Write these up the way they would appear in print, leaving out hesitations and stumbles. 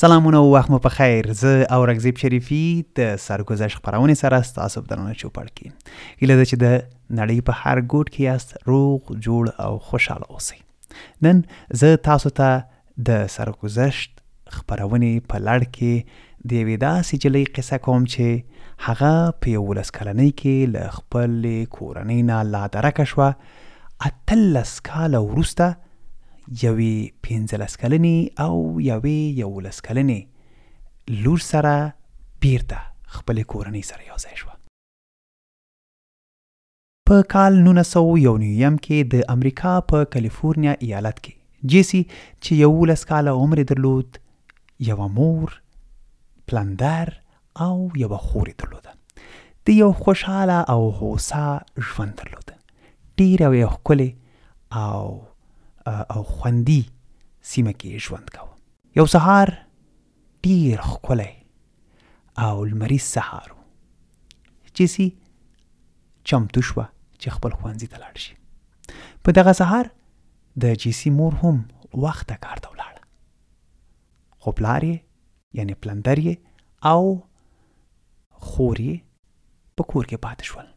سلامونه او وخت مو په خیر. زه او رګزیب شریفي د سرګذشت خپرونې سره ستاسو په درنه چوپړ کې. هیله ده چې د نړۍ په هر ګوټ کې یاست روغ جوړ او خوشحاله اوسئ. نن زه تاسو ته د سرګذشت خپرونې په لړ کې د یوې داسې نجلۍ قصه کوم چې هغه په 11 کلنۍ کې له خپلې کورنۍ نه لادرکه شوه. 18 کاله وروسته یوې 15 کلنې او یوې 11 کلنې لور سره بیرته خپلې کورنۍ سره یو ځای شوه. په کال 1909 کې د امریکا په کالیفورنیا ایالت کې جیسی چې 11 کاله عمر درلود یوه مور، پلندر او یوه خور درلوده. د یو خوشحاله او هوسا ژوند درلوده. ډېره یې ښکلې او خوندي سیمه کې ژوند کوه. یو سهار ډېر ښکلی او لمریز سهار و. جیسی چمتو شوه چې خپل ښوونځي ته لاړ شي. په دغه سهار د جیسی مور هم وخته کار ته ولاړه. خو پلار یې یعنې پلندر یې او خور یې په کور کې پاتې شول.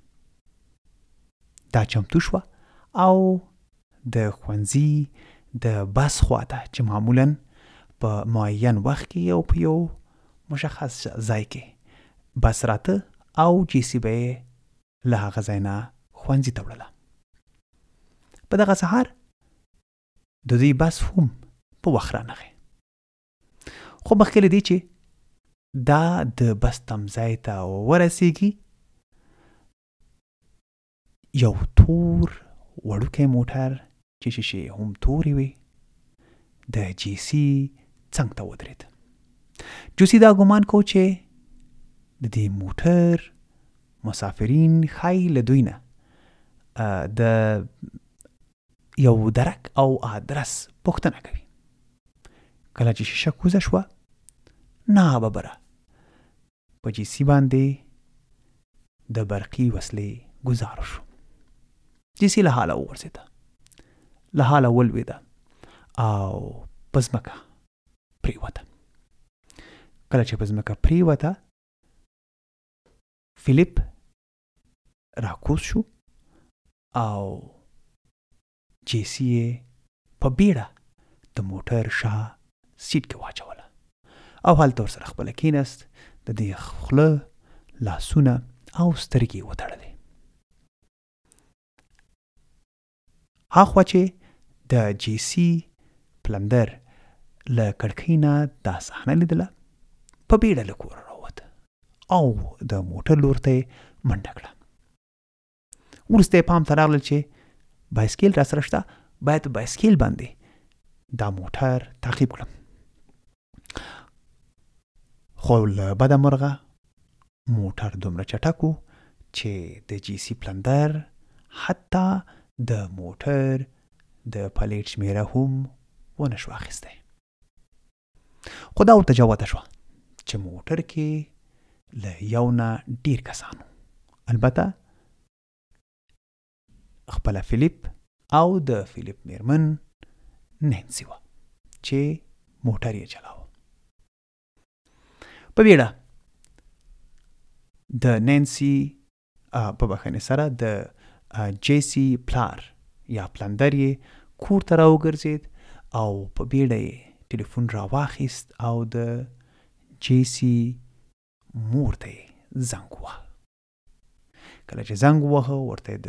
دا چمتو شوه او د ښوونځي د بس خواته چې معمولاً په معین وخت کې او په یو مشخص ځای کې بس راته او جیسی به یې له هغه ځای نه ښوونځي ته وړله. په دغه سهار د دوی بس هم په وخت رانغی. خو مخکې له دې چې دا د بس تمځای ته ورسیږي یو تور وړوکی موټر چې شیشې هم تورې وې د جیسی څنګ ته ودرېد. جیسی دا ګمان کو چې د دې موټر مسافرین ښایي له دوی نه د یو درک او آدرس پوښتنه کوي. کله چې شیشه کوزه شوه ناببره په جیسی باندې د برقي وسلې ګزار شو. جیسی له حاله وغورځېده، له حاله ولوېده او په ځمکه پرېوته. کله چې په ځمکه پرېوته فلیپ راکوز شو او جیسی یې په بیړه د موټر شا سیټ کې واچوله او هلته ورسره خپله کېناست. د دې خوله، لاسونه او سترګې یې وتړلې. هاخوا چې د جیسی پلندر له کړکۍ نه دا صحنه لیدله په بیړه له کوره راووته او د موټر لور ته یې منډه کړه. وروسته یې پام ته راغلل چې بایسکل را سره شته، باید په بایسکل باندې دا موټر تعقیب کړم. خو له بده مرغه موټر دومره چټک و چې د جیسی پلندر حتی د موټر د پلیټ شمیره هم ونه شو اخیستی. خو دا ورته جوته شوه چې موټر کې له یو نه ډېر کسان وو. البته خپله فلیپ او د فلیپ میرمن نینسي وه چې موټر یې چلاوه. په بیړه د نینسي په بخښنې سره د جیسی پلار یا پلندر یې کور ته راوګرځېد او په بیړه یې ټلیفون راواخیست او د جیسی مور ته یې زنګ وواهه. کله چې زنګ وواهه ورته یې د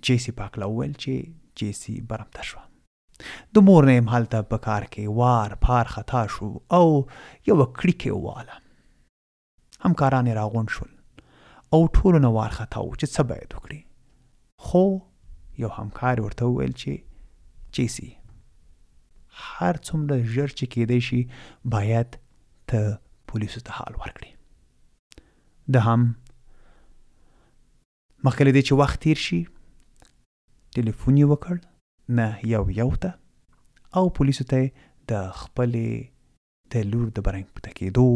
جیسی په هکله وویل چې جیسی برمته شوه. د مور نه یې هلته په کار کې وار پار خطا شو او یوه کړیکه یې وواله. همکاران یې راغونډ شول او ټولو نه وارخطا وو چې څه باید وکړي. خو یو همکار ورته وویل چې جیسی هر څومره ژر چې کېدی شي باید ته پولیسو ته حال ورکړي. ده هم مخکې له دې چې وخت تیر شي ټلیفون یې وکړ نه یو ته او پولیسو ته یې د خپلې د لور د برمته کېدو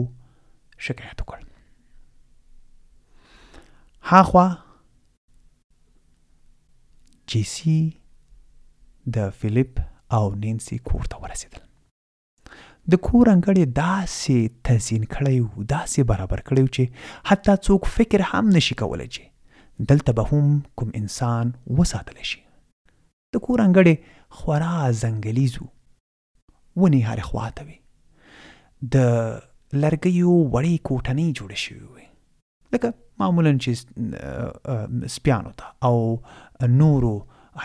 شکایت وکړ. هاخوا جیسی د فلیپ او نینسي کور ته ورسېدل. د کور انګړ یې داسې تزیین کړی و، داسې برابر کړی و چې حتی څوک فکر هم نشي کولی چې دلته به هم کوم انسان وساتلی شي. د کور انګړ یې خورا ځنګلیز و، ونې هرې خواته وې، د لرګیو وړې کوټنۍ جوړې شوې وې، لکه معمولا چې سپیانو ته او نورو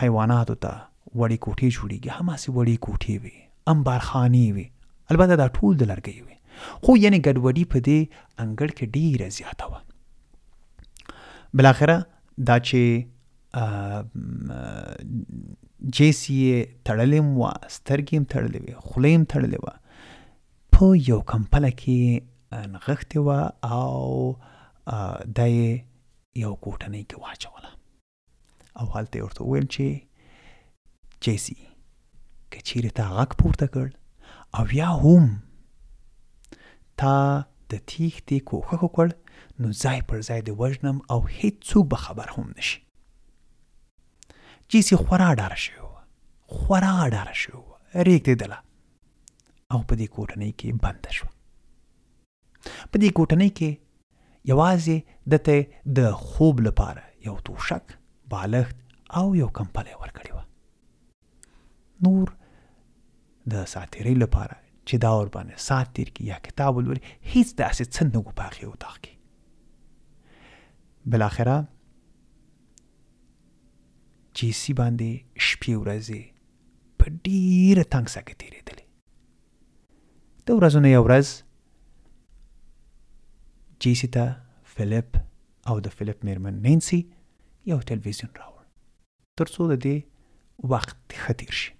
حیواناتو ته وړې کوټې جوړېږي، هماسې وړې کوټې وې، انبارخانې وې، البته دا ټول د لرګیو وې، خو یعنې ګډوډي په دې انګړ کې ډېره زیاته وه. بالاخره دا چې جیسي یې تړلې وه، سترګې هم تړلې وې، خوله هم تړلې وه، په یو کمپله کې نغښتې وه او دا یې یو کوټنۍ کې واچوله او هلته یې ورته وویل چې جیسي که چیرې تا غږ پورته کړ او یا هم تا د تیښتې کوښښ وکړ نو ځای پر ځای دې وژنم او هیڅوک به خبر هم نشي. جیسي خورا ډاره شوې وه، خورا ډاره شوې وه، رېږدېدله او په دې کوټنۍ کې بنده شوه. په دې کوټنۍ کې یوازې دته د خوب لپاره یو توشک، بالښت او یو کمپله یې ورکړې وه. نور د ساعتېرۍ لپاره چې دا ورباندې ساعت تېر کړي یا کتاب ولولي هیڅ داسې څه نه وو په هغې اتاق کې. بالاخره جیسي باندې شپې ورځې په ډېره تنګ ساه کې تېرېدلې. د ورځو نه یوه ورځ جیسي ته فلیپ او د فلیپ میرمن نینسي یو تلویزیون راوړ تر څو د دې وخت ښه تېر شي.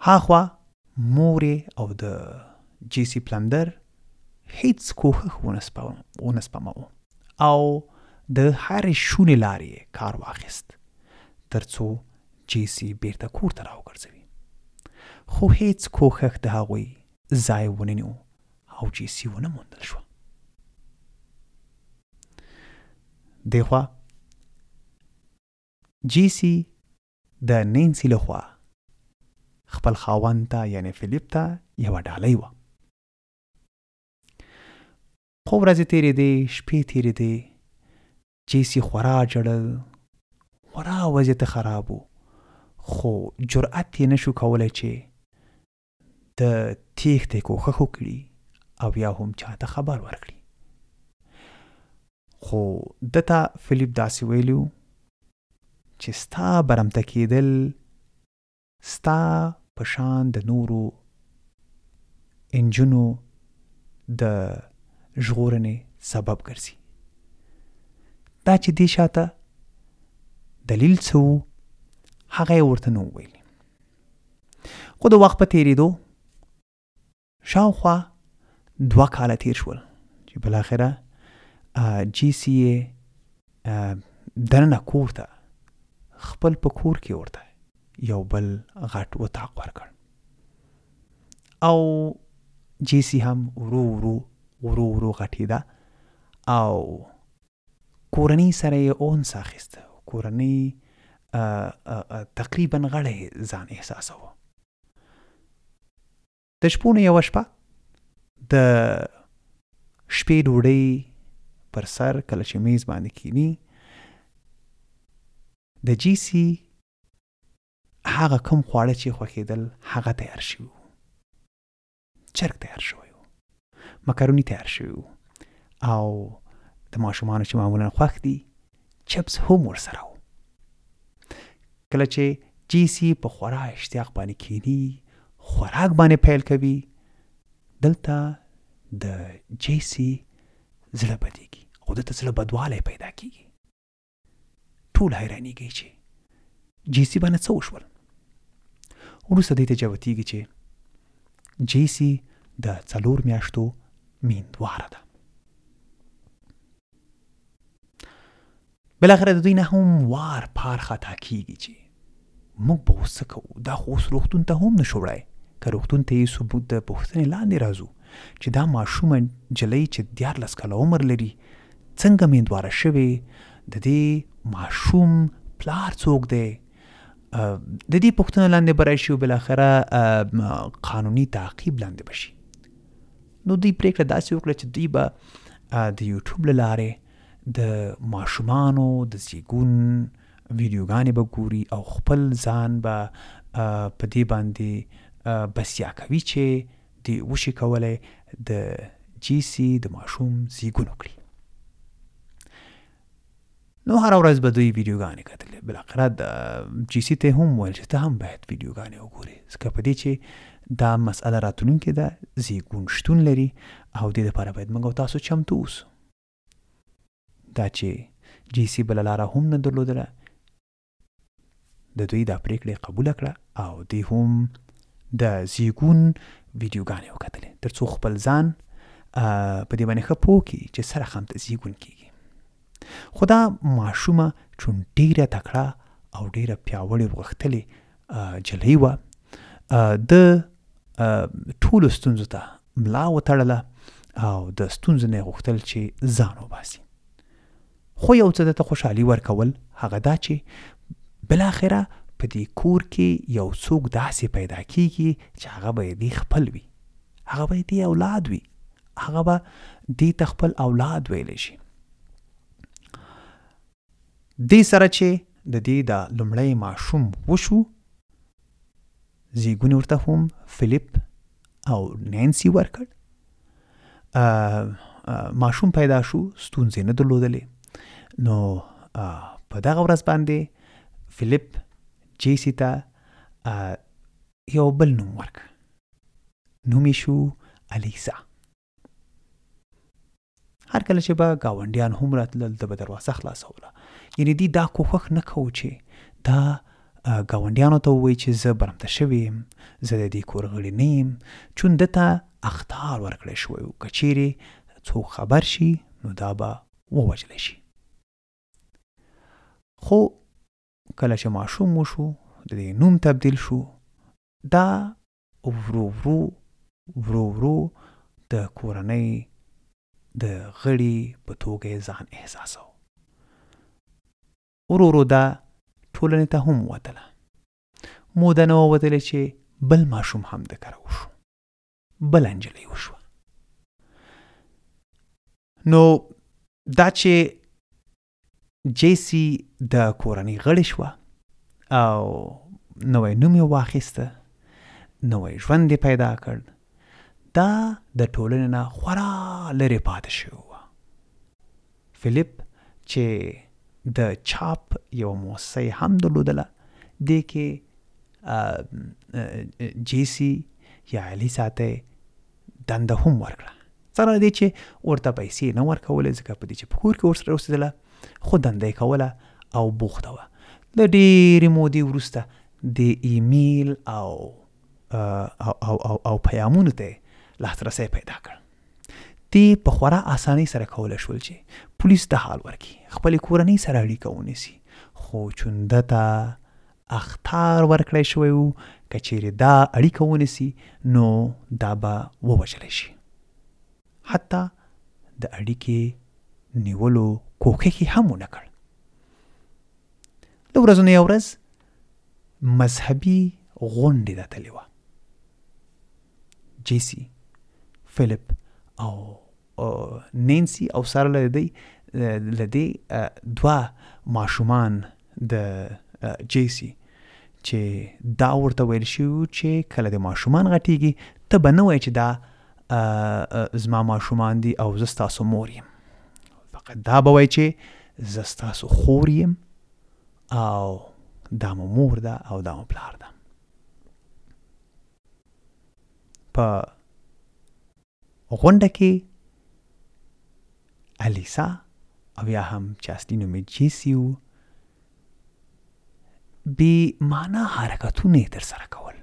هاخوا مور او د جیسي پلندر هیڅ کوښښ ونه سپموه او د هرې شونې لارې کار واخیست تر څو جیسي بیرته کور ته راوګرځوي، خو هیڅ کوښښ د هغوی ځای ونه نیو او جیسي ونه موندل شوه. دې خوا جیسي د نینسي لخوا خپل خاوند ته یعنې فلیپ ته یوه ډالۍ وه. خو ورځې تېرېدې، شپې تېرېدې، جیسي خورا ژړل، خورا وضعیت خراب و، خو جرأت یې نشو کولی چې د تېښتې کوښښ وکړي او یا هم چاته خبر ورکړي. خو دته فلیپ داسې ویلي و چې ستا برمته کېدل ستا په شان د نورو انجونو د ژغورنې سبب ګرځي. دا چې دې شاته دلیل څه و هغه یې ورته نه وویلي. خو د وخت په تېرېدو شاوخوا 2 کاله تېر شول چې بالاخره جیسي یې دننه کور ته خپل په کور کې ورته یو بل غټ اتاق ورکړ او جیسي هم ورو ورو غټېده او کورنۍ سره یې اونس اخیسته، کورنۍ تقریبا غړی ځان احساسوه. د شپو نه یوه شپه د شپې ډوډۍ پر سر کله چې میز باندې کینی د جیسي هغه کوم خواړه چې خوښېدل هغه تیار شوي وو. چرګ تیار شوی و، مکروني تیار شوي وو او د ماشومانو چې معمولا خوښ دي چپس هم ورسره و. کله چې جیسي په خورا اشتیاق باندې کینی، خوراک باندې پیل کوي، دلته د جیسي زړه بدیږي او دلته زړه بدوالی پیدا کیږي. ټول حیرانېږي چې جیسي باندې څه وشول. وروسته دې ته جوتېږي چې جیسي د 4 میاشتو میندواره ده. بالاخره د دوی نه هم وار پار خطا کیږي چې موږ به اوس څه کوو، دا خو اوس روغتون ته هم نشو وړی، که روغتون ته یې ثبوت د پوښتنې لاندې راځو چې دا ماشومه نجلۍ چې 14 کاله عمر لري څنګه میندواره شوې، د دې ماشوم پلار څوک دی د دې پوښتنه لاندې به راشي او بالاخره قانوني تعقیب لاندې به شي. نو دوی پرېکړه داسې وکړه چې دوی به د یوټیوب له لارې د ماشومانو د زیږون ویډیوګانې به ګوري او خپل ځان به په دې باندې بسیا کوي چې دوی وشي کولی د جیسي د ماشوم زیږون وکړي. نو هر ورځ به دوی ویډیوګانې کتلې. بالاخره د جیسي ته هم ویل چې ته هم باید ویډیوګانې وګورې، ځکه په دې چې دا مسئله راتلونکې ده، زیږون شتون لري او دې دپاره باید موږ او تاسو چمتو اوسو. دا چې جیسي بله لاره هم نه درلودله، د دوی دا پرېکړه قبوله کړه او دوی هم د زیږون ویډیوګانې وکتلې تر څو خپل ځان په دې باندې ښه پوه کړي چې سره خامته زیږون کېږي. خو دا ماشومه چون ډېره تکړه او ډېره پیاوړې غښتلې جلۍ وه، د ټولو ستونزو ته ملا وتړله او د ستونزو نه یې غوښتل چې ځان وباسي. خو یو څه درته خوشحالي ورکول هغه دا چې بالاخره په دې کور کې یو څوک داسې پیدا کېږي چې هغه به دې خپل وي، هغه به دې اولاد وي، هغه به دې ته خپل اولاد ویلی شي. دې سره چې د دې د لومړی ماشوم وشو، زیږون ورته هم فلیپ او نینسي ورکړ. ماشوم پیدا شو، ستونزې نه درلودلې. نو په دغه ورځ باندې فلیپ جیسي ته یو بل نوم ورکړ، نوم یې شو الیسا. هر کله چې به ګاونډیان هم راتلل ده به دروازه خلاصوله. یعنې دوی دا کوښښ نه کوو چې دا ګاونډیانو ته ووایي چې زه برمته شوی یم، زه د دې کور غړی نه یم، چون ده ته اخطار ورکړی شوی و، که چیرې څوک خبر شي نو دا به ووژلی شي. خو کله چې ماشوم وشو، د دې نوم تبدیل شو، دا ورو ورو ورو ورو د کورنۍ د غړي په توګه ځان احساسو. ورو ورو دا ټولنې ته هم وتله. موده نه ووتلې چې بل ماشوم هم د کره وشو، بل نجلۍ وشوه. نو دا چې جیسي د کورنۍ غړې شوه او نوی نوم یې واخیسته، نوی ژوند یې پیدا کړ، دا د ټولنې نه خورا لرې پاتې شوی وه. فلیپ چې د چاپ یو موسسه یې هم درلودله، دې کې جیسي یا الیسا ته دنده هم ورکړه، سره دې چې ورته پیسې نه ورکولې، ځکه په دې چې په کور کې ورسره اوسېدله، خو دنده یې کوله او بوخته وه. له ډېرې مودې وروسته د ایمیل او پیامونو ته لاسرسی پیدا کړ. دې په خورا اسانۍ سره کولی شول چې پولیس ته حال ورکړي، خپلې کورنۍ سره اړیکه ونیسي. خو چون ده ته اخطار ورکړی شوی و، که چیرې دا اړیکه ونیسي نو دا به ووژلی شي. حتی د اړیکې نیولو کوښښ یې هم ونه کړ. د ورځو نه یوه ورځ مذهبي غونډې راتلې وه. جیسي، فلیپ او نینسي او سره له دې دوه ماشومان د جیسي چې دا ورته ویل شوي چې کله د ماشومان غټېږي ته به نه وایې چې دا زما ماشومان دي او زه ستاسو مور یم، فقط دا به وایې چې زه ستاسو خور یم او دا مو مور ده او دا مو پلار ده. په غونډه کې الیسا او یا هم چې اصلي نوم یې جیسي و، بې معنا حرکتونه یې ترسره کول،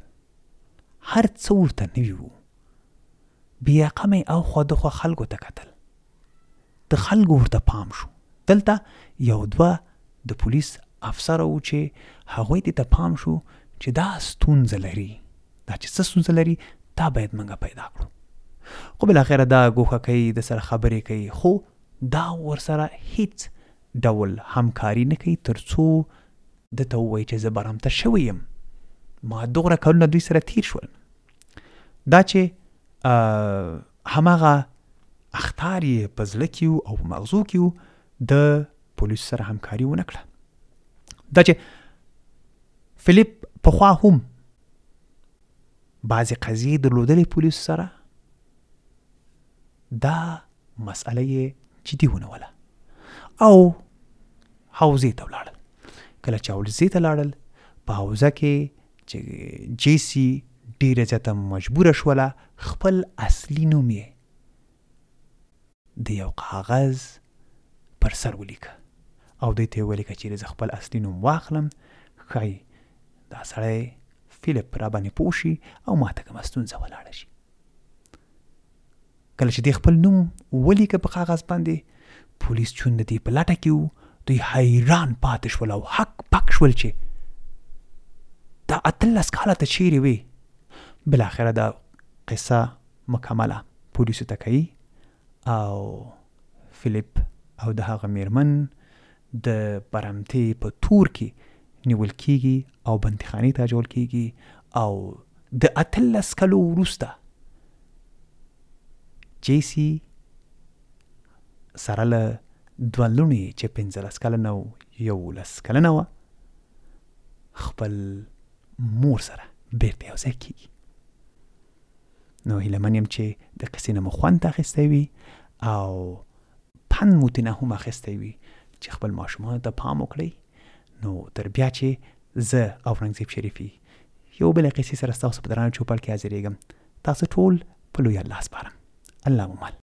هر څه ورته نوي وو. بې رقمه یې اخوا دخوا خلکو ته کتل، د خلکو ورته پام شو. دلته یو دوه د پولیس افسره وو چې هغوی دې ته پام شو چې دا ستونزه لري، دا چې څه ستونزه لري دا باید موږ پیدا کړو. خو بالاخره دا ګوښه کوي، د سره خبرې کوي، خو دا ورسره هیڅ ډول همکاري نه کوي تر څو ده ته ووایي چې زه برمته شوی یم، ما دوغره کلونه دوی سره تیر شول. دا چې هماغه اخطار یې په زړه کې و او په مغزو کې و، د پولیسو سره همکاري ونه کړه. دا چې فلیپ پخوا هم بعضې قضیې درلودلې پولیسو سره، دا مسئله یې جدي ونیوله او حوزې ته ولاړل. کله چې حوزې ته لاړل، په حوزه کې چې جیسی ډیره زیاته مجبوره شوله خپل اصلي نوم یې د یو کاغذ پر سر ولیکه او دوی ته یې ولیکه چې زه خپل اصلي نوم واخلم، ښایي دا سړی فلیپ را باندې پوه شي او ما ته کومه ستونزه ولاړه شي. کله چې دی خپل نوم ولیکه په کاغذ باندې، پولیس چون د دې په لټه کې و، دوی حیران پاتې شول او حق پک شول چې دا 18 کاله ته چیرې وې. بالاخره دا قصه مکمله پولیسو ته کوي او فلیپ او د هغه میرمن د برمتې په تور کې نیول کیږي او بندیخانې ته اچول کیږي او د 18 کلو وروسته جیسی سره له دوه لوڼې چې 15 کلنه او 11 کلنه وه خپل مور سره بیرته یو ځای کیږي. نو هیله من یم چې د قصې نه مو خوند اخیستی وي او پند مو ترې نه هم اخیستی وي چې خپل ماشومانو ته پام وکړئ. نو تر بیا چې زه او اورنګزیب شریفي یو بلې قصې سره ستاسو په درانه چوپړ کې حاضرېږم، تاسو ټول په لوی الله سپارم. الله مو مل.